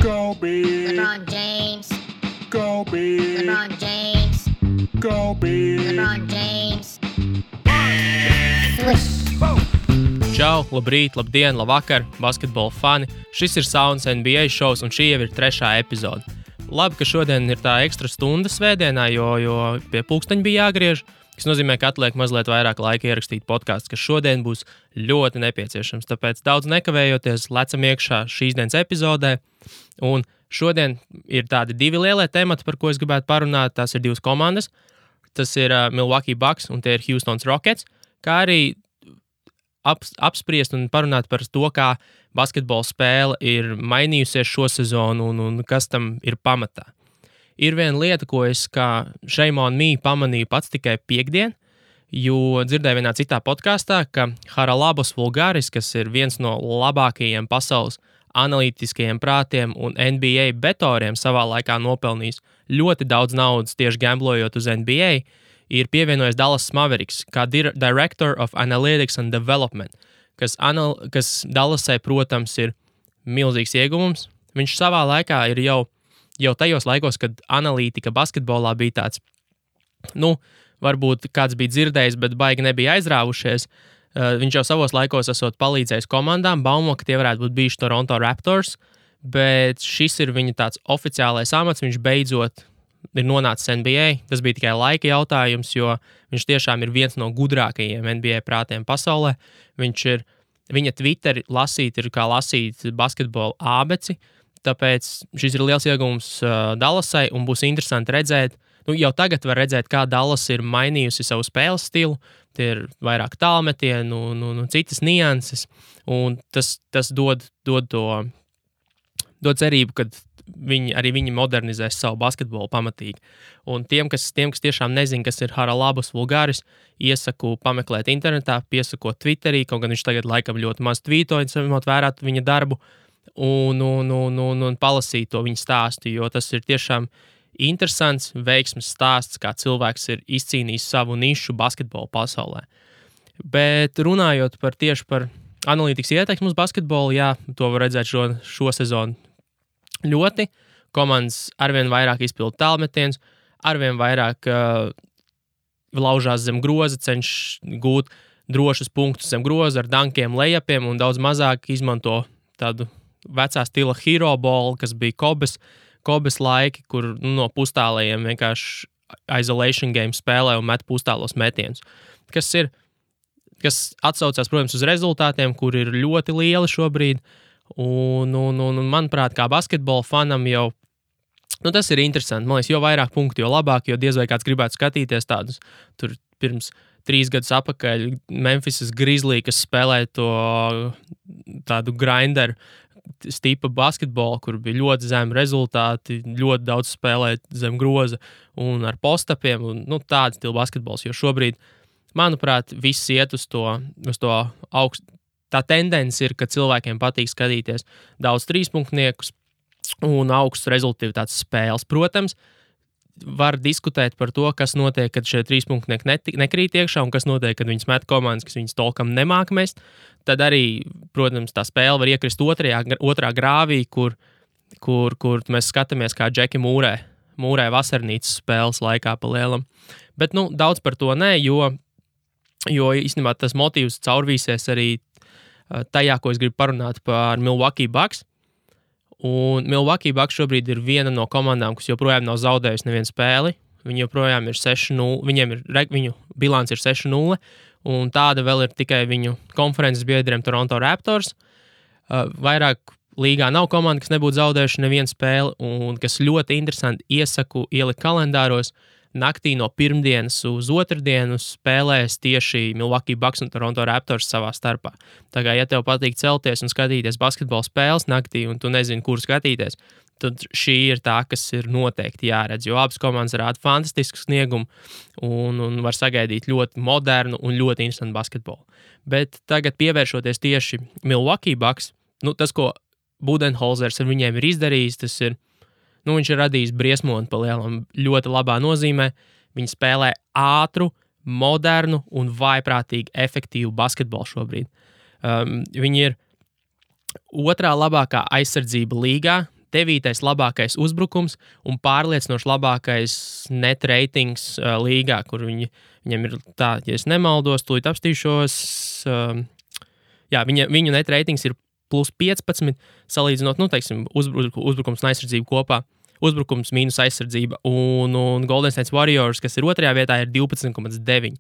Go Big. LeBron James. Go Big. LeBron James. Go Big. LeBron James. Swish. Čau, labrīt, labdien, labvakar, basketbola fani. Šis ir Sounds NBA šovs, un šī jau ir 3. epizode. Labi, ka šodien ir tā ekstra stunda svētdienā, jo pie pulksteņa bija jāgriež, kas nozīmē, ka atliek mazliet vairāk laika ierakstīt podcasts, kas šodien būs ļoti nepieciešams. Tāpēc daudz nekavējoties lecam iekšā šīs dienas epizodē. Un šodien ir tādi 2 lielie temati, par ko es gribētu parunāt. Tās ir 2 komandas. Tas ir Milwaukee Bucks un tie ir Houston Rockets, kā arī apspriest un parunāt par to, kā basketbola spēle ir mainījusies šo sezonu un kas tam ir pamatā. Ir viena lieta, ko es kā Shame on Me pamanīju pats tikai piektdien, jo dzirdēju vienā citā podkastā, ka Haralabos Vulgaris, kas ir viens no labākajiem pasaules analītiskajiem prātiem un NBA betoriem savā laikā nopelnījis ļoti daudz naudas tieši gamblojot uz NBA, ir pievienojis Dallas Mavericks kā Director of Analytics and Development, kas Dallasai, protams, ir milzīgs ieguvums. Viņš savā laikā ir jau tajos laikos, kad analītika basketbolā bija tāds, varbūt kāds bija dzirdējis, bet baigi nebija aizrāvušies. Viņš jau savos laikos esot palīdzējis komandām, baumo, ka tie varētu būt bijuši Toronto Raptors, bet šis ir viņa tāds oficiālais amats, viņš beidzot ir nonācis NBA. Tas bija tikai laika jautājums, jo viņš tiešām ir viens no gudrākajiem NBA prātiem pasaulē. Viņa Twitteri lasīt ir kā lasīt basketbola ābeci, tāpēc šis ir liels iegūms Dallasai un būs interesanti redzēt. Jau tagad var redzēt, kā Dallas ir mainījusi savu spēles stilu. Tie ir vairāk tālmetienu, citas nianses, un tas dod cerību, ka viņi modernizēs savu basketbolu pamatīgi. Un tiem, kas tiešām nezin, kas ir Haralabos Vulgaris, iesaku pameklēt internetā, piesakot Twitterī, kaut gan viņš tagad laikam ļoti maz tvītoja, ņemot vērā viņa darbu, un palasīt to viņa stāstu, jo tas ir tiešām interesants, veiksmes stāsts, kā cilvēks ir izcīnījis savu nišu basketbola pasaulē. Bet runājot tieši par analītikas ietekmi uz basketbolu, jā, to var redzēt šo sezonu ļoti. Komandas arvien vairāk izpilda tālmetienus, arvien vairāk laužās zem groza, cenšas gūt drošus punktus zem groza ar dankiem, lejapiem un daudz mazāk izmanto tādu vecā stila hero ball, kas bija Kobes laiki, kur no pustālējiem vienkārši isolation game spēlē un met pustālos metienus. Kas atsaucās, protams, uz rezultātiem, kur ir ļoti lieli šobrīd. Un manuprāt, kā basketbola fanam jau tas ir interesanti. Man liekas, jo vairāk punktu, jo labāk, jo diez vai kāds gribētu skatīties tādus. Tur pirms 3 gadus atpakaļ Memphisas Grizzly, kas spēlēja to tādu grinderu stipa basketbolu, kur bija ļoti zemi rezultāti, ļoti daudz spēlēt zem groza un ar postapiem, un tāda stila basketbols, jo šobrīd, manuprāt, viss iet uz to augstu. Tā tendence ir, ka cilvēkiem patīk skatīties daudz trīspunktniekus un augstus rezultātus spēles. Protams, var diskutēt par to, kas notiek, kad šie trīspunktnieki nekrīt iekšā un kas notiek, kad viņas met komandas, kas viņas tolkam nemāk mest. Tad arī, protams, tā spēle var iekrist otrā grāvī, kur mēs skatāmies, kā Džeki mūrē vasarnīcas spēles laikā pa lielam. Bet, daudz par to nē, jo īstenībā tas motīvs caurvīsies arī tajā, ko es gribu parunāt par Milwaukee Bucks. Un Milwaukee Bucks šobrīd ir viena no komandām, kas joprojām nav zaudējusi nevienu spēli. Viņi joprojām ir 6-0, viņu bilants ir 6-0, un tāda vēl ir tikai viņu konferences biedriem Toronto Raptors. Vairāk līgā nav komanda, kas nebūtu zaudējuši nevienu spēli, un kas ļoti interesanti iesaku ielikt kalendāros. Naktī no pirmdienas uz otrdienu spēlēs tieši Milwaukee Bucks un Toronto Raptors savā starpā. Tā kā, ja tev patīk celties un skatīties basketbola spēles naktī, un tu nezini, kur skatīties, tad šī ir tā, kas ir noteikti jāredz, jo abas komandas rāda fantastisku sniegumu un var sagaidīt ļoti modernu un ļoti interesantu basketbolu. Bet tagad pievēršoties tieši Milwaukee Bucks, tas, ko Budenholzers ar viņiem ir izdarījis, tas ir viņš ir radījis briesmoni pa lielam ļoti labā nozīmē. Viņi spēlē ātru, modernu un vaiprātīgi efektīvu basketbolu šobrīd. Viņi ir otrā labākā aizsardzība līgā, 9. labākais uzbrukums un pārliecinoši labākais net ratings līgā, kur viņam ir tā, ja es nemaldos, tūlīt apstīšos. Viņu net ratings ir plus 15, salīdzinot, teiksim, uzbrukums un aizsardzību kopā. Uzbrukums mīnus aizsardzība un Golden State Warriors, kas ir 2. vietā, ir 12,9.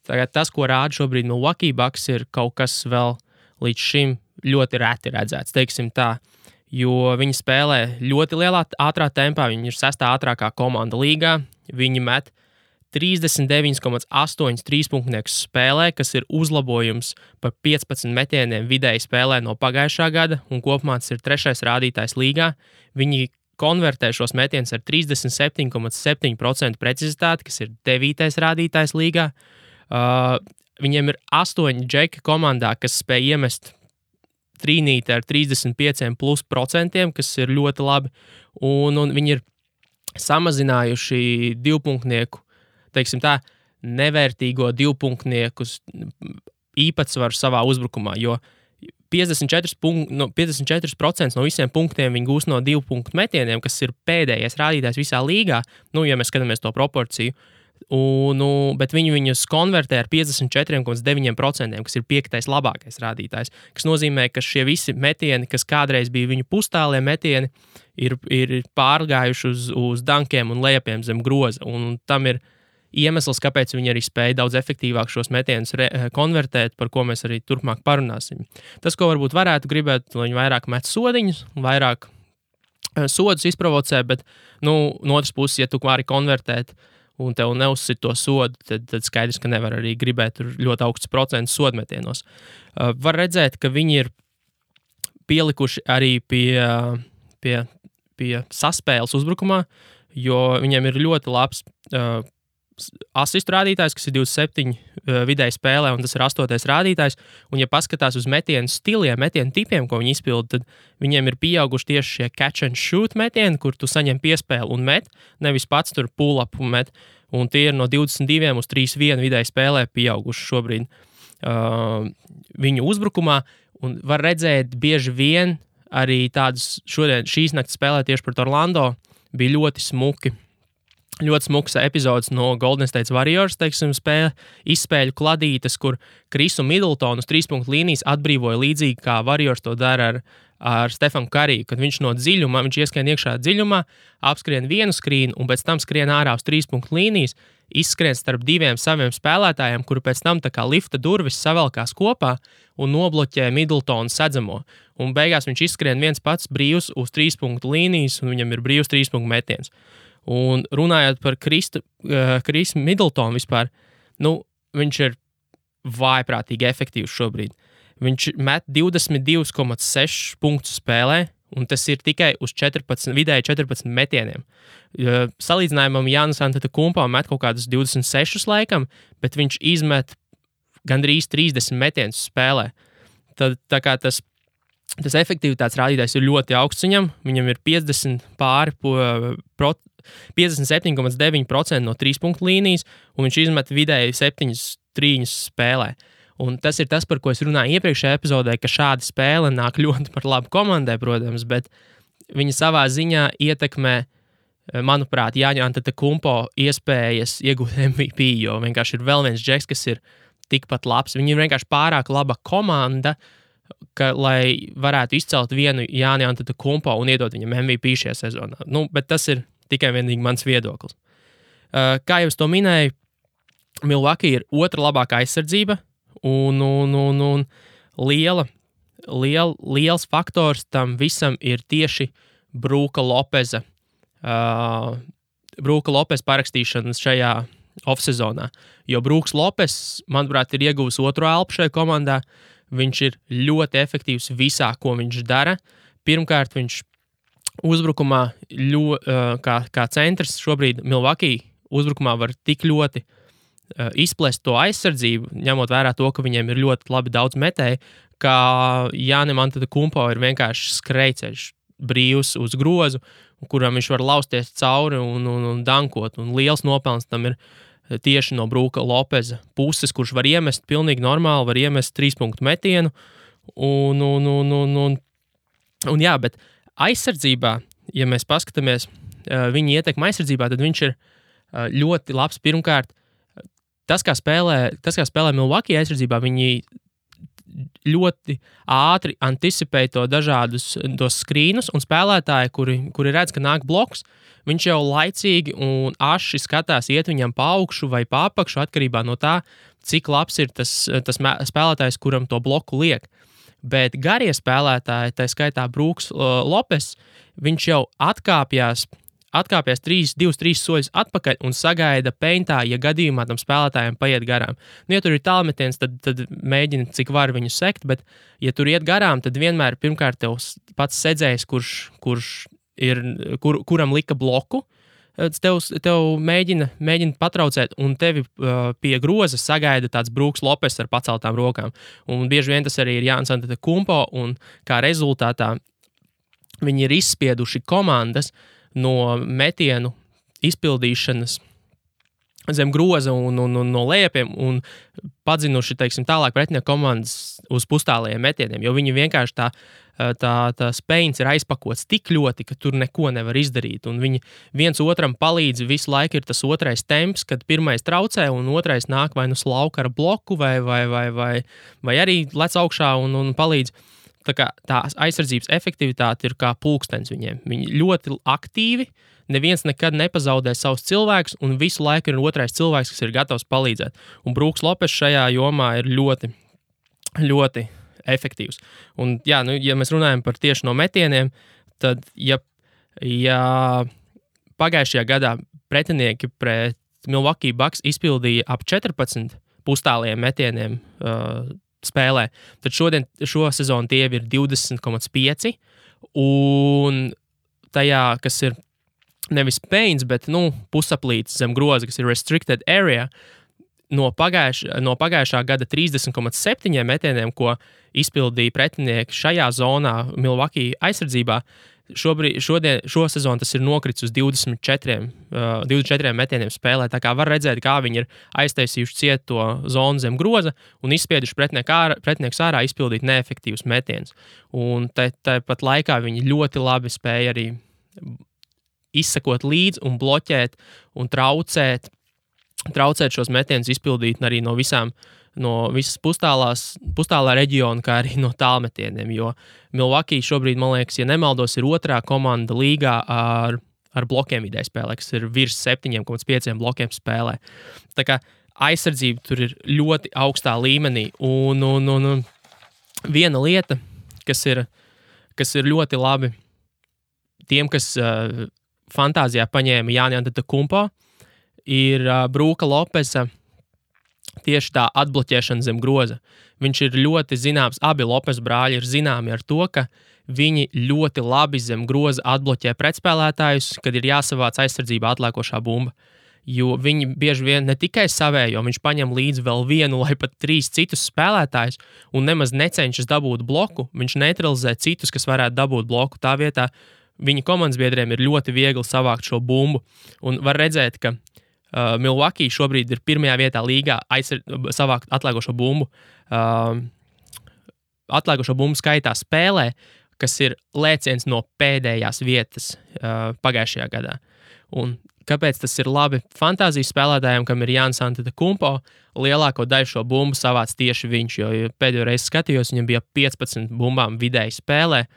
Tagad tas, ko rāda šobrīd Milwaukee Bucks, ir kaut kas vēl līdz šim ļoti reti redzēts, teiksim tā, jo viņi spēlē ļoti lielā ātrā tempā, viņi ir 6. ātrākā komanda līgā, viņi met 39,8 trīspunktniekus spēlē, kas ir uzlabojums par 15 metieniem vidēji spēlē no pagājušā gada, un kopumā tas ir 3. rādītājs līgā. Viņi konvertē šos metienus ar 37,7% precizitāti, kas ir 9. rādītājs līgā. Viņiem ir 8 džeki komandā, kas spēj iemest trīnīti ar 35%, kas ir ļoti labi, un viņi ir samazinājuši divpunktnieku, teiksim tā, nevērtīgo divpunktnieku īpatsvaru savā uzbrukumā, jo 54% no visiem punktiem viņi gūst no 2 punktu metieniem, kas ir pēdējais rādītājs visā līgā, ja mēs skatāmies to proporciju, bet viņi viņus konvertē ar 54,9%, kas ir 5. labākais rādītājs, kas nozīmē, ka šie visi metieni, kas kādreiz bija viņu pustālie metieni, ir pārgājuši uz dankiem un lejapiem zem groza, un tam ir iemesls, kāpēc viņi arī spēja daudz efektīvāk šos metienus konvertēt, par ko mēs arī turpmāk parunāsim. Tas, ko varbūt varētu gribēt, lai viņi vairāk met sodiņus, vairāk sodus izprovocē, bet, no otras puses, ja tu vari konvertēt un tev neuzsit to sodu, tad skaidrs, ka nevar arī gribēt ļoti augsts procents sodmetienos. Var redzēt, ka viņi ir pielikuši arī pie saspēles uzbrukumā, jo viņiem ir ļoti labs asistu rādītājs, kas ir 27 vidēji spēlē, un tas ir 8. rādītājs, un ja paskatās uz metienu stiliem, metienu tipiem, ko viņi izpilda, tad viņiem ir pieauguši tieši šie catch and shoot metieni, kur tu saņem piespēli un met, nevis pats tur pull up un met, un tie ir no 22 uz 3-1 vidēji spēlē pieauguši šobrīd viņu uzbrukumā, un var redzēt bieži vien arī tādus šīs naktas spēlē tieši pret Orlando bija ļoti smuks epizodes no Golden State Warriors, teiksim, izspēļu kladītes, kur Krisu Middletonu uz 3-punktu līnijas atbrīvoja līdzīgi, kā Warriors to dara ar Stefanu Kariju, kad viņš no dziļumā, viņš ieskrien iekšā dziļumā, apskrien vienu skrīnu un pēc tam skrien ārā uz 3-punktu līnijas, izskrien starp 2 saviem spēlētājiem, kuri pēc tam tā kā lifta durvis savelkās kopā un nobloķē Middletonu sedzamo. Un beigās viņš izskrien viens pats brīvs uz 3-punktu līnijas un viņam ir brīvs 3-punktu metiens. Un runājot par Krisu Middletonu vispār, viņš ir vājprātīgi efektīvs šobrīd. Viņš met 22,6 punktus spēlē, un tas ir tikai uz vidēji 14 metieniem. Salīdzinājumam Jānis Antetokounmpo met kaut kādus 26 laikam, bet viņš izmet gandrīz 30 metienus spēlē. Tad tā kā tas efektivitātes rādītājs ir ļoti augsts viņam ir 57,9% no 3-punktu līnijas, un viņš izmet vidēji 7 trīņus spēlē. Un tas ir tas, par ko es runāju iepriekšējā epizodē, ka šāda spēle nāk ļoti par labu komandai, protams, bet viņa savā ziņā ietekmē, manuprāt, Jāņa Antetokounmpo iespējas iegūt MVP, jo vienkārši ir vēl viens džeks, kas ir tikpat labs. Viņi ir vienkārši pārāk laba komanda, lai varētu izcelt vienu Jāni Antetokounmpo un iedot viņam MVP šajā sezonā. Bet tas ir tikai vienīgi mans viedoklis. Kā jau es to minēju, Milwaukee ir 2. labākā aizsardzība, un liels faktors tam visam ir tieši Brooka Lopeza parakstīšanas šajā off-sezonā. Jo Brooks Lopes, manuprāt, ir ieguvis 2. elpu šajā komandā. Viņš ir ļoti efektīvs visā, ko viņš dara. Pirmkārt, viņš uzbrukumā kā centrs šobrīd Milwaukee uzbrukumā var tik ļoti izplest to aizsardzību, ņemot vērā to, ka viņiem ir ļoti labi daudz metēji, ka Jānim Antetokounmpo ir vienkārši skrejceļš brīvs uz grozu, kuram viņš var lausties cauri un dankot. Un liels nopelns tam ir tieši no Brooka Lopeza puses, kurš var iemest pilnīgi normāli, var iemest 3-punktu metienu. Un jā, bet aizsardzībā, ja mēs paskatāmies viņa ietekmi aizsardzībā, tad viņš ir ļoti labs. Pirmkārt, tas, kā spēlē Milwaukee aizsardzībā, viņi ļoti ātri anticipē to dažādus tos skrīnus, un spēlētāji, kuri redz, ka nāk bloks, viņš jau laicīgi un aši skatās iet viņam pa augšu vai pa apakšu, atkarībā no tā, cik labs ir tas spēlētājs, kuram to bloku liek. Bet garie spēlētāji, tā skaitā Brooks Lopes, viņš jau atkāpjās 2-3 soļus atpakaļ un sagaida peintā, ja gadījumā tam spēlētājiem paiet garām. Nu, ja tur ir tālmetiens, tad mēģina, cik var viņu sekt, bet ja tur iet garām, tad vienmēr pirmkārt tev pats sedzējs, kuram lika bloku, tev mēģina patraucēt, un tevi pie groza sagaida tāds Brooks Lopes ar paceltām rokām. Un bieži vien tas arī ir Giannis Antetokounmpo, un kā rezultātā viņi ir izspieduši komandas no metienu izpildīšanas zem groza un no lejapiem un padzinuši, teiksim, tālāk pretinieku komandas uz pustālajiem metieniem, jo viņi vienkārši tā spējas ir aizpakots tik ļoti, ka tur neko nevar izdarīt, un viņi viens otram palīdz, visu laiku ir tas otrais temps, kad pirmais traucē un otrais nāk vai nu slauka ar bloku vai arī lec augšā un palīdz. Tā aizsardzības efektivitāte ir kā pulkstenis viņiem. Viņi ļoti aktīvi, neviens nekad nepazaudē savus cilvēkus, un visu laiku ir otrais cilvēks, kas ir gatavs palīdzēt. Un Brooks Lopes šajā jomā ir ļoti, ļoti efektīvs. Un, jā, nu, ja mēs runājam par tieši no metieniem, tad, ja pagājušajā gadā pretinieki pret Milwaukee Bucks izpildīja ap 14 pustāliem metieniem spēlē, tad šo sezonu tie ir 20,5, un tajā, kas ir nevis paints, bet pusaplīts zem groza, kas ir restricted area, no pagājušā gada 30,7 metieniem, ko izpildīja pretinieki šajā zonā Milwaukee aizsardzībā, šo sezonu tas ir nokritis uz 24 metieniem spēlē. Tā kā var redzēt, kā viņi ir aiztaisījuši ciet to zonu zem groza un izspieduši pretiniekus ārā izpildīt neefektīvus metienus. Un tāpat laikā viņi ļoti labi spēja arī izsekot līdzi un bloķēt un traucēt šos metienus izpildīt arī no visas pustālā reģiona, kā arī no tālmetieniem, jo Milwaukee šobrīd, man liekas, ja nemaldos, ir otrā komanda līgā ar blokiem vidēji spēlē, kas ir virs 7,5 blokiem spēlē. Tā kā aizsardzība tur ir ļoti augstā līmenī, un viena lieta, kas ir ļoti labi tiem, kas fantāzijā paņēma Giannis Antetokounmpo, ir Brooka Lopesa tieši tā atbloķēšana zem groza. Viņš ir ļoti zināms, abi Lopes brāļi ir zināmi ar to, ka viņi ļoti labi zem groza atbloķē pretspēlētājus, kad ir jāsavāc aizsardzībā atlēkošā bumba. Jo viņi bieži vien ne tikai savējo, viņš paņem līdzi vēl vienu vai pat 3 citus spēlētājus un nemaz necenšas dabūt bloku, viņš neutralizē citus, kas varētu dabūt bloku. Tā vietā viņa komandas biedriem ir ļoti viegli savākt šo bumbu. Un var redzēt, ka Milwaukee šobrīd ir pirmajā vietā līgā savākt atlēkošo bumbu. Atlēkošo bumbu skaitā spēlē, kas ir lēciens no pēdējās vietas pagājušajā gadā. Un kāpēc tas ir labi fantāzijas spēlētājiem, kam ir Giannis Antetokounmpo, lielāko daļu šo bumbu savāc tieši viņš, jo pēdējo reizi skatījos, viņam bija 15 bumbām vidēji spēlē,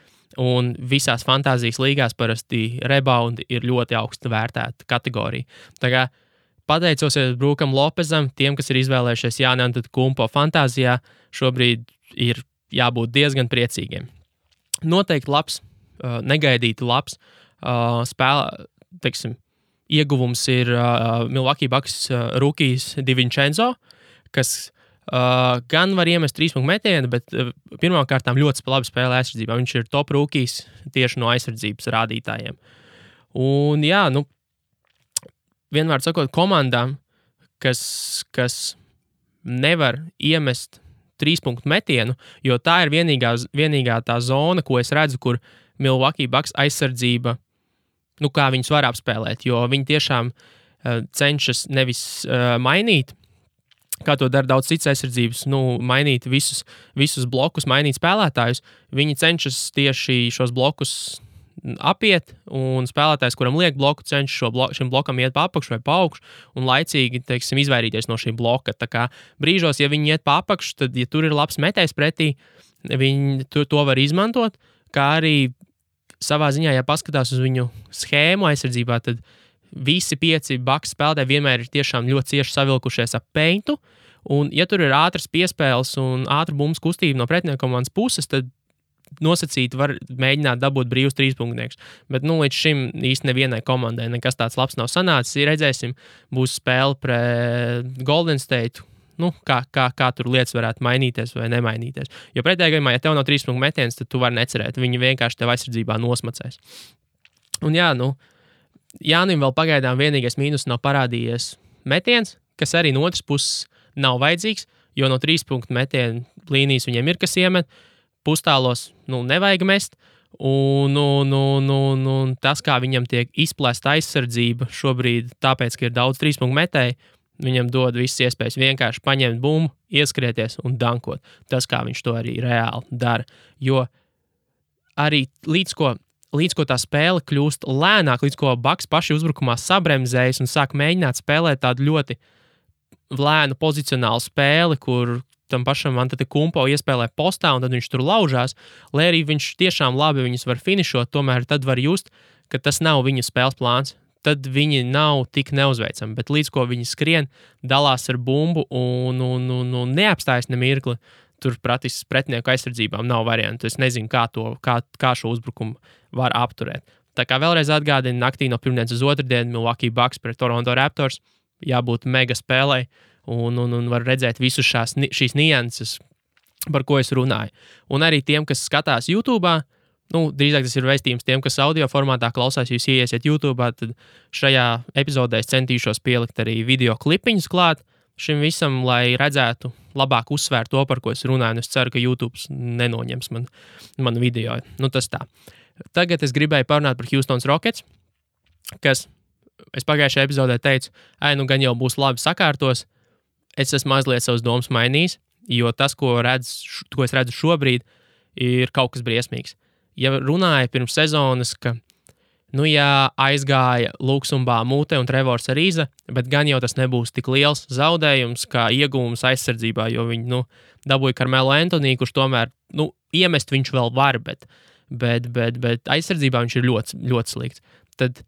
un visās fantāzijas līgās parasti reboundi ir ļoti augsti vērtēta kategorija. Tā kā pateicosies Brookam Lopesam, tiem, kas ir izvēlējušies Giannis Antetokounmpo fantāzijā, šobrīd ir jābūt diezgan priecīgiem. Noteikti labs, negaidīti labs ieguvums ir Milwaukee Bucks rookies DiVincenzo, kas gan var iemest 3-punktu metienu, bet pirmkārt ļoti labi spēlē aizsardzībā. Viņš ir top rookies tieši no aizsardzības rādītājiem. Un jā, vienmēr sakot, komandām, kas nevar iemest 3-punktu metienu, jo tā ir vienīgā tā zona, ko es redzu, kur Milwaukee Bucks aizsardzība, kā viņus var apspēlēt, jo viņi tiešām cenšas nevis mainīt, kā to dara daudz citas aizsardzības, mainīt visus blokus, mainīt spēlētājus. Viņi cenšas tieši šos blokus apiet, un spēlētājs, kuram liek bloku, cenšas šim blokam iet pa apakšu vai pa augšu, un laicīgi, teiksim, izvairīties no šī bloka. Tā kā brīžos, ja viņi iet pa apakšu, tad, ja tur ir labs metējs pretī, viņi to var izmantot, kā arī savā ziņā, ja paskatās uz viņu schēmu aizsardzībā, tad visi 5 Bucks spēlētāji vienmēr ir tiešām ļoti cieši savilkušies ap peintu, un ja tur ir ātras piespēles un ātra bumbas kustība no pretinieka komandas puses, tad nosacīti var mēģināt dabūt brīvus 3-punktniekus. Bet līdz šim īsti nevienai komandai nekas tāds labs nav sanācis. Redzēsim, būs spēle pret Golden State. Kā tur lietas varētu mainīties vai nemainīties. Jo pretējā gadījumā, ja tev nav 3-punktu metiens, tad tu vari necerēt. Viņi vienkārši tev aizsardzībā nosmacēs. Un Jānim vēl pagaidām vienīgais mīnus nav parādījies metiens, kas arī no otras puses nav vajadzīgs, jo no 3-punktu metienu līnijas viņiem ir kas iemet. Pustālos nevajag mest, un tas, kā viņam tiek izplēsta aizsardzība šobrīd, tāpēc, ka ir daudz 3-punktu metēju, viņam dod visas iespējas vienkārši paņemt bumbu, ieskrieties un dankot. Tas, kā viņš to arī reāli dara. Jo arī līdz ko tā spēle kļūst lēnāk, līdz ko Bucks paši uzbrukumā sabremzējas un sāk mēģināt spēlēt tādu ļoti lēnu pozicionālu spēli, kur tam pašam Antetokounmpo iespēlē postā, un tad viņš tur laužās, lai arī viņš tiešām labi viņus var finišot, tomēr tad var just, ka tas nav viņu spēles plāns. Tad viņi nav tik neuzveicami, bet līdz ko viņi skrien, dalās ar bumbu un neapstājas ne mirkli, tur praktiski pretinieku aizsardzībām nav variantu. Es nezinu, kā šo uzbrukumu var apturēt. Tā kā vēlreiz atgādinu, naktī no pirmdienas uz otrdienu Milwaukee Bucks pret Toronto Raptors jābūt mega spēlei, un var redzēt visus šīs nianses, par ko es runāju. Un arī tiem, kas skatās YouTube'ā, drīzāk tas ir vēstījums tiem, kas audio formātā klausās, jūs ieiesiet YouTube'ā, tad šajā epizodē es centīšos pielikt arī video klipiņus klāt šim visam, lai redzētu labāk uzsvērt to, par ko es runāju, un es ceru, ka YouTube nenoņems manu video. Tas tā. Tagad es gribēju parunāt par Houston Rockets, kas es pagājušajā epizodē teicu, gan jau būs labi sakārtos. Es esmu mazliet savas domas mainījis, jo tas, ko es redzu šobrīd, ir kaut kas briesmīgs. Ja runāja pirms sezonas, ka aizgāja Luksumba Mūte un Trevors Ariza, bet gan jau tas nebūs tik liels zaudējums kā iegūms aizsardzībā, jo viņi dabūja Carmelo Anthony, kurš tomēr iemest viņš vēl var, bet aizsardzībā viņš ir ļoti, ļoti slikts. Tad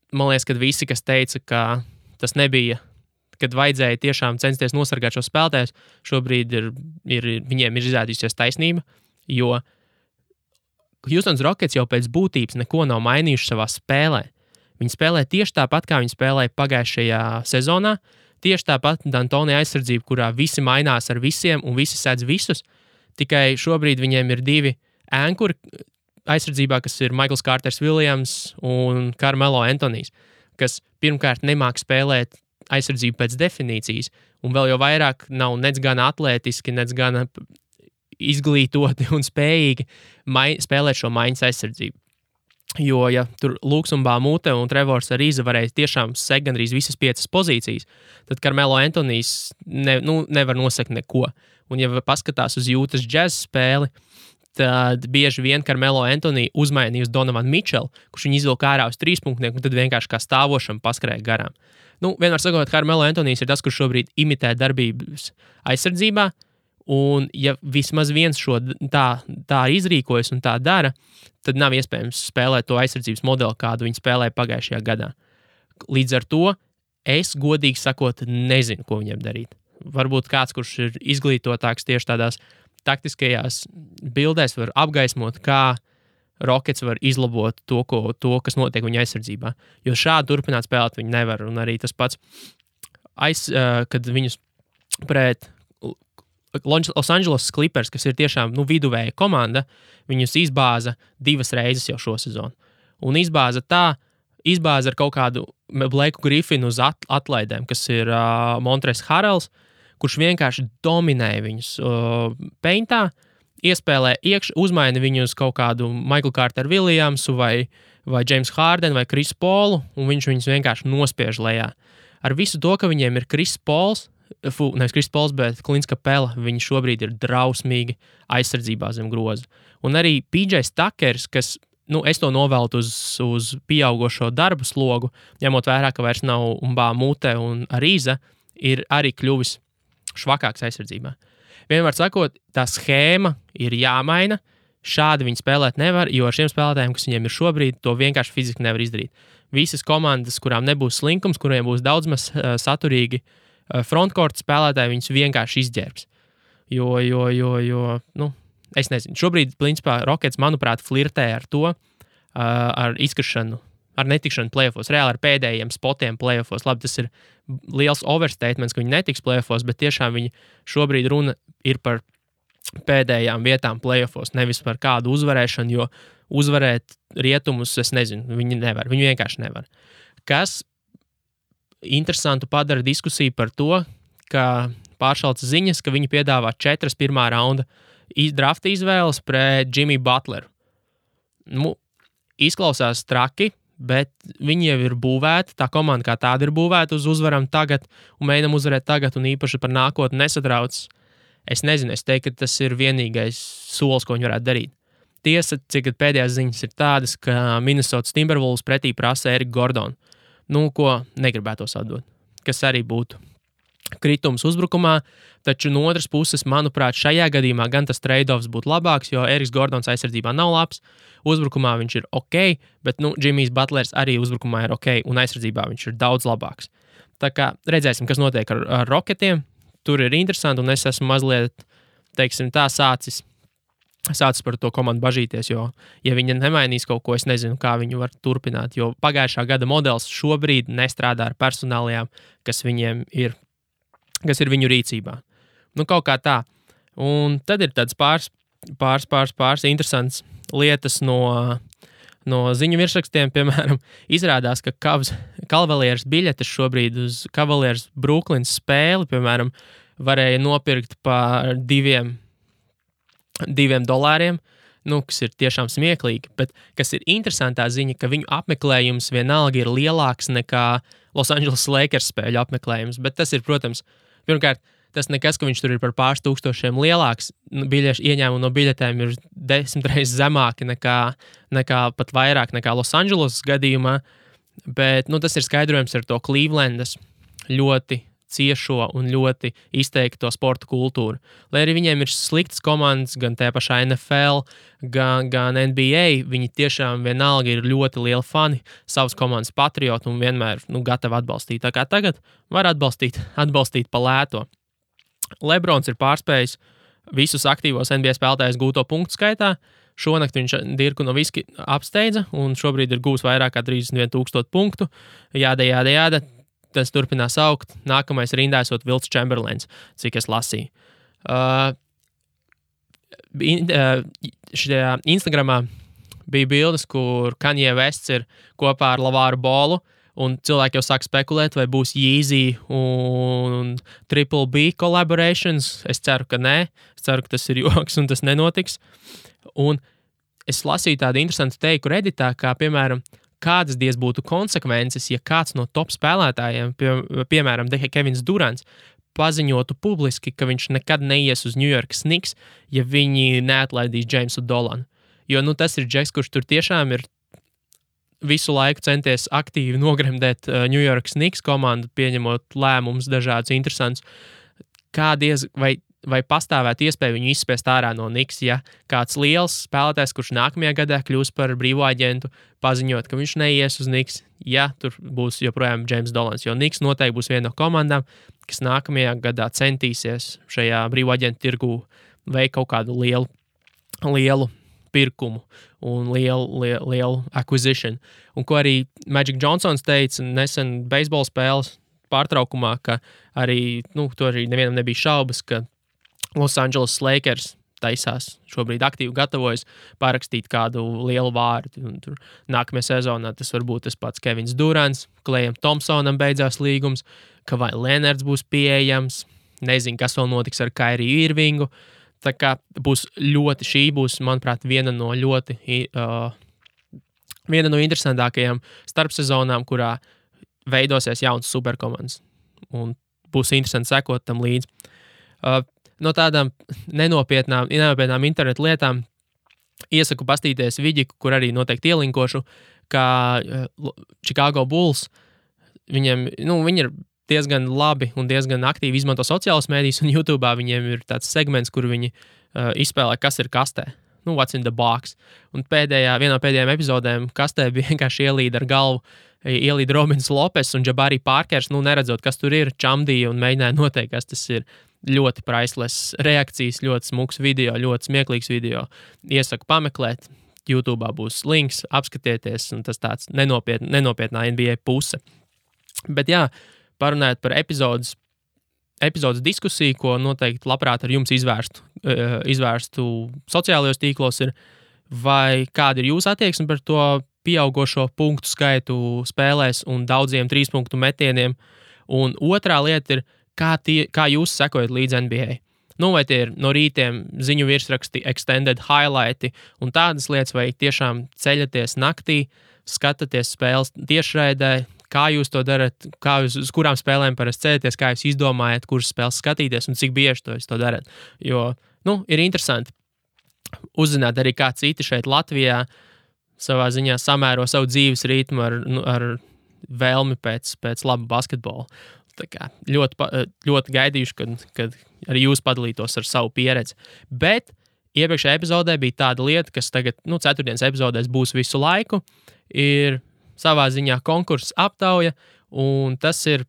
man liekas, ka visi, kas teica, ka tas nebija, kad vajadzēja tiešām censties nosargāt šo spēlētājus, šobrīd viņiem ir izrādījusies taisnība, jo Houston Rockets jau pēc būtības neko nav mainījuši savā spēlē. Viņi spēlē tieši tāpat, kā viņi spēlēja pagājušajā sezonā, tieši tāpat D'Antoni aizsardzība, kurā visi mainās ar visiem un visi sēdz visus, tikai šobrīd viņiem ir 2 ankuri aizsardzībā, kas ir Michaels Carters Williams un Carmelo Anthonijs, kas pirmkārt nemāk spēlēt aizsardzību pēc definīcijas, un vēl jau vairāk nav nec gan atlētiski, nec gan izglītoti un spējīgi spēlēt šo maiņas aizsardzību. Jo, ja tur Luksumba Mūte un Trevors Ariza varēja tiešām sekt gandrīz visas 5 pozīcijas, tad Carmelo Anthonijs nevar nosekt neko. Un ja paskatās uz Utah Jazz spēli, tad bieži vien Carmelo Anthony uzmainīja uz Donovan Mitchell, kurš viņu izvilka ārā uz 3-punktnieku, un tad vienkārši kā stāvošam paskrēja garām. Vienmēr sakot, Carmelo Anthonijs ir tas, kurš šobrīd imitē darbības aizsardzībā, un ja vismaz viens šo tā izrīkojas un tā dara, tad nav iespējams spēlēt to aizsardzības modeli, kādu viņi spēlēja pagājušajā gadā. Līdz ar to es, godīgi sakot, nezinu, ko viņiem darīt. Varbūt kāds, kurš ir izglītotāks tieši tādās taktiskajās bildēs, var apgaismot, kā Rockets var izlabot to, kas notiek viņa aizsardzībā. Jo šādi turpināt spēlēt viņi nevar. Un arī tas pats, kad viņus pret Los Angeles Clippers, kas ir tiešām viduvēja komanda, viņus izbāza 2 reizes jau šo sezonu. Un izbāza ar kaut kādu Blakeu Griffinu uz atlaidēm, kas ir Montrezl Harrells, kurš vienkārši dominēja viņus peintā, iespēlē uzmaina viņu uz kaut kādu Michael Carter Williamsu vai James Harden vai Chris Paulu, un viņš viņus vienkārši nospiež lejā. Ar visu to, ka viņiem ir nevis Chris Pauls, bet Clint Capela, viņi šobrīd ir drausmīgi aizsardzībā zem groza. Un arī PJ Tuckers, kas es to noveltu uz pieaugošo darbu slogu, ņemot vērā, ka vairs nav Mute un Arīza, ir arī kļuvis švakāks aizsardzībā. Vienmēr sakot, tā schēma ir jāmaina, šādi viņi spēlēt nevar, jo ar šiem spēlētājiem, kas viņiem ir šobrīd, to vienkārši fiziski nevar izdarīt. Visas komandas, kurām nebūs slinkums, kuriem būs daudz maz saturīgi frontkorta spēlētāji, viņus vienkārši izģērbs. Jo, es nezinu. Šobrīd, principā, Rockets, manuprāt, flirtē ar to, ar izkrišanu, ar netikšanu playoffos, reāli ar pēdējiem spotiem playoffos. Labi, tas ir liels overstatements, ka viņi netiks playoffos, bet tiešām viņi šobrīd runa ir par pēdējām vietām playoffos, nevis par kādu uzvarēšanu, jo uzvarēt rietumus, es nezinu, viņi vienkārši nevar. Kas interesantu padara diskusiju par to, ka pāršalca ziņas, ka viņi piedāvā 4 pirmā raunda drafta izvēles pret Jimmy Butleru. Izklausās traki, bet viņi jau ir būvēti, tā komanda kā tāda ir būvēta uz uzvaram tagad un mēģinam uzvarēt tagad un īpaši par nākotni nesatrauc. Es nezinu, es teiktu, ka tas ir vienīgais solis, ko viņi varētu darīt. Tiesa, cik pēdējās ziņas ir tādas, ka Minnesota Timberwolves pretī prasa Eriku Gordonu, ko negribētos atdot, kas arī būtu kritums uzbrukumā, taču no otras puses, manuprāt, šajā gadījumā gan tas trade-offs būtu labāks, jo Eriks Gordons aizsardzībā nav labs, uzbrukumā viņš ir ok, bet Jimmys Butlers arī uzbrukumā ir ok, un aizsardzībā viņš ir daudz labāks. Tā kā redzēsim, kas notiek ar Rocketiem, tur ir interesanti, un es esmu mazliet, teiksim tā, sācis par to komandu bažīties, jo, ja viņi nemainīs kaut ko, es nezinu, kā viņi var turpināt, jo pagājušā gada modelis šobrīd nestrādā ar personālijām, kas ir viņu rīcībā. Kaut kā tā. Un tad ir tāds pāris interesants lietas no ziņu virsrakstiem, piemēram, izrādās, ka Cavaliers biļetes šobrīd uz Cavaliers Brooklyns spēli, piemēram, varēja nopirkt par $2, kas ir tiešām smieklīgi, bet kas ir interesantā ziņa, ka viņu apmeklējums vienalga ir lielāks nekā Los Angeles Lakers spēļu apmeklējums, bet tas ir, protams, pirmkārt, tas nekas, ka viņš tur ir par pāris tūkstošiem lielāks, ieņēmumi no biļetēm ir 10 reizes zemāki nekā pat vairāk nekā Los Angeles gadījumā, bet tas ir skaidrojums ar to Clevelandas ļoti ciešo un ļoti izteikto sporta kultūru. Lai arī viņiem ir sliktas komandas, gan tajā pašā NFL, gan NBA, viņi tiešām vienalga ir ļoti lieli fani, savas komandas patrioti un vienmēr gatavi atbalstīt. Tā kā tagad var atbalstīt pa lēto. Lebrons ir pārspējis visus aktīvos NBA spēlētājus gūto punktu skaitā. Šonakt viņš Dirku Nowitzki apsteidza un šobrīd ir gūs vairāk kā 31,000 punktu. Jāda. Tas turpinās augt. Nākamais rindā esot Wilts Chamberlains, cik es lasīju. Šajā Instagramā bija bildes, kur Kanye Wests ir kopā ar Lavāru Bolu, un cilvēki jau sāk spekulēt, vai būs Yeezy un Triple B collaborations. Es ceru, ka nē. Es ceru, ka tas ir joks un tas nenotiks. Un es lasīju tādu interesantu teiku Redditā, kā, piemēram, kādas diez būtu konsekvences, ja kāds no top spēlētājiem, piemēram, Kevins Durants, paziņotu publiski, ka viņš nekad neies uz New York Knicks, ja viņi neatlaidīs Jamesu Dolanu. Jo tas ir džeks, kurš tur tiešām ir visu laiku centies aktīvi nogremdēt New York Knicks komandu, pieņemot lēmumus dažādus interesantus. Vai pastāvētu iespēja viņu izspiest ārā no Knicks, ja kāds liels spēlētājs, kurš nākamajā gadā kļūs par brīvo aģentu, paziņot, ka viņš neies uz Knicks, ja tur būs joprojām James Dolans, jo Knicks noteikti būs viena no komandām, kas nākamajā gadā centīsies šajā brīvo aģentu tirgū veikt kaut kādu lielu pirkumu un lielu acquisition. Un ko arī Magic Johnsons teica nesen beisbola spēles pārtraukumā, ka arī, to arī nevienam nebija šaubas, ka Los Angeles Lakers taisās šobrīd aktīvi gatavojas parakstīt kādu lielu vārdu. Un tur nākamajā sezonā tas var būt tas pats Kevins Durants, Klejam Thompsonam beidzās līgums, ka vai Leonards būs pieejams, nezinu, kas vēl notiks ar Kairiju Irvingu. Tā kā šī būs, manuprāt, viena no interesantākajām starpsezonām, kurā veidosies jauns superkomandas. Un būs interesanti sekot tam līdzi. No tādām nenopietnām internetu lietām Iesaku pastīties Viģiku, kur arī noteikti ielinkošu, kā Chicago Bulls. Viņi ir diezgan labi un diezgan aktīvi izmanto sociālas mēdīs, un YouTube viņiem ir tāds segments, kur viņi izspēlē, kas ir kastē. What's in the box. Un vienā no pēdējām epizodēm kastē bija vienkārši ielīda ar galvu, ielīda Robins Lopes un Jabari Parkers, neredzot, kas tur ir, čamdīja un mēģināja noteikt, kas tas ir. Ļoti priceless reakcijas, ļoti smuks video, ļoti smieklīgs video. Iesaku pameklēt, YouTube būs links, apskatieties, un tas tāds nenopietnā NBA puse. Bet jā, parunājot par epizodes diskusiju, ko noteikti labprāt ar jums izvērstu sociālajos tīklos, ir, vai kāda ir jūsu attieksme par to pieaugošo punktu skaitu spēlēs un daudziem 3-punktu metieniem. Un otrā lieta ir, kā jūs sekojat līdz NBA? Vai tie ir no rītiem ziņu virsraksti, extended highlighti un tādas lietas, vai tiešām ceļaties naktī, skatāties spēles tiešraidē, kā jūs to darat, uz kurām spēlēm parasti ceļaties, kā jūs izdomājat, kuras spēles skatīties un cik bieži to darat. Jo, ir interesanti uzzināt arī, kā citi šeit Latvijā savā ziņā samēro savu dzīves ritmu ar vēlmi pēc laba basketbola. Tā kā ļoti gaidījuši, kad arī jūs padalītos ar savu pieredzi. Bet iepriekšējā epizodē bija tāda lieta, kas tagad, 4. epizodēs būs visu laiku, ir savā ziņā konkurss aptauja, un tas ir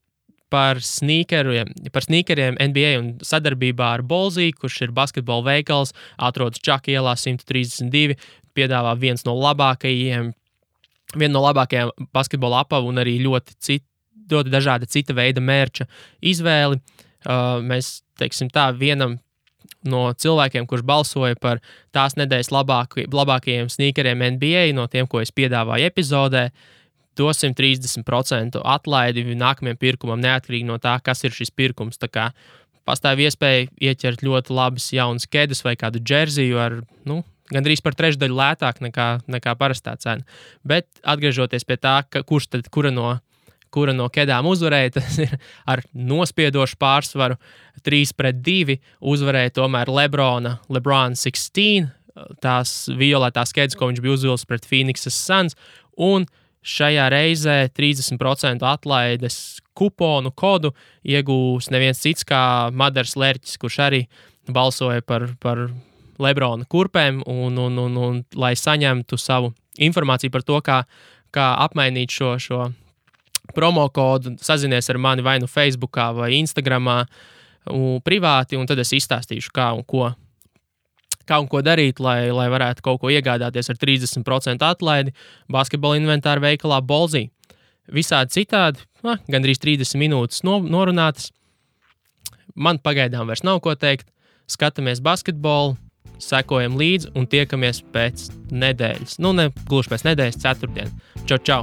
par sneakeriem NBA un sadarbībā ar Bolzī, kurš ir basketbola veikals, atrodas Čaka ielā 132, piedāvā vienu no labākajiem basketbola apavu un arī ļoti dažāda cita veida mērča izvēli. Mēs, teiksim tā, vienam no cilvēkiem, kurš balsoja par tās nedēļas labākajiem sneakeriem NBA, no tiem, ko es piedāvāju epizodē, dosim 30% atlaidi nākamajam pirkumam, neatkarīgi no tā, kas ir šis pirkums. Tā kā pastāv iespēja ieķert ļoti labas jaunas kedas vai kādu džerziju ar, gandrīz par trešdaļu lētāk nekā parastā cena. Bet atgriežoties pie tā, kura no kedām uzvarēja, tas ir ar nospiedošu pārsvaru 3-2 uzvarēja tomēr LeBron 16, tās violetās kedas, ko viņš bija uzvilcis pret Phoenixas Suns, un šajā reizē 30% atlaides kuponu kodu iegūs neviens cits kā Madars Lerķis, kurš arī balsoja par LeBrona kurpēm, un lai saņemtu savu informāciju par to, kā apmainīt šo promo kodu, sazinies ar mani vai Facebookā vai Instagramā privāti, un tad es izstāstīšu, kā un ko darīt, lai varētu kaut ko iegādāties ar 30% atlaidi basketbola inventāra veikalā Bolzī. Visādi citādi, gandrīz 30 minūtes norunātas. Man pagaidām vairs nav ko teikt. Skatāmies basketbolu, sekojam līdzi un tiekamies pēc nedēļas. Ne gluži pēc nedēļas, ceturtdien. Čau!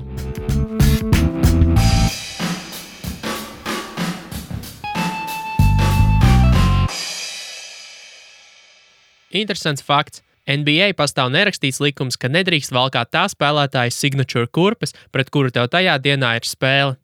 Interesants fakts. NBA pastāv nerakstīts likums, ka nedrīkst valkāt tā spēlētāja signature kurpes, pret kuru tev tajā dienā ir spēle.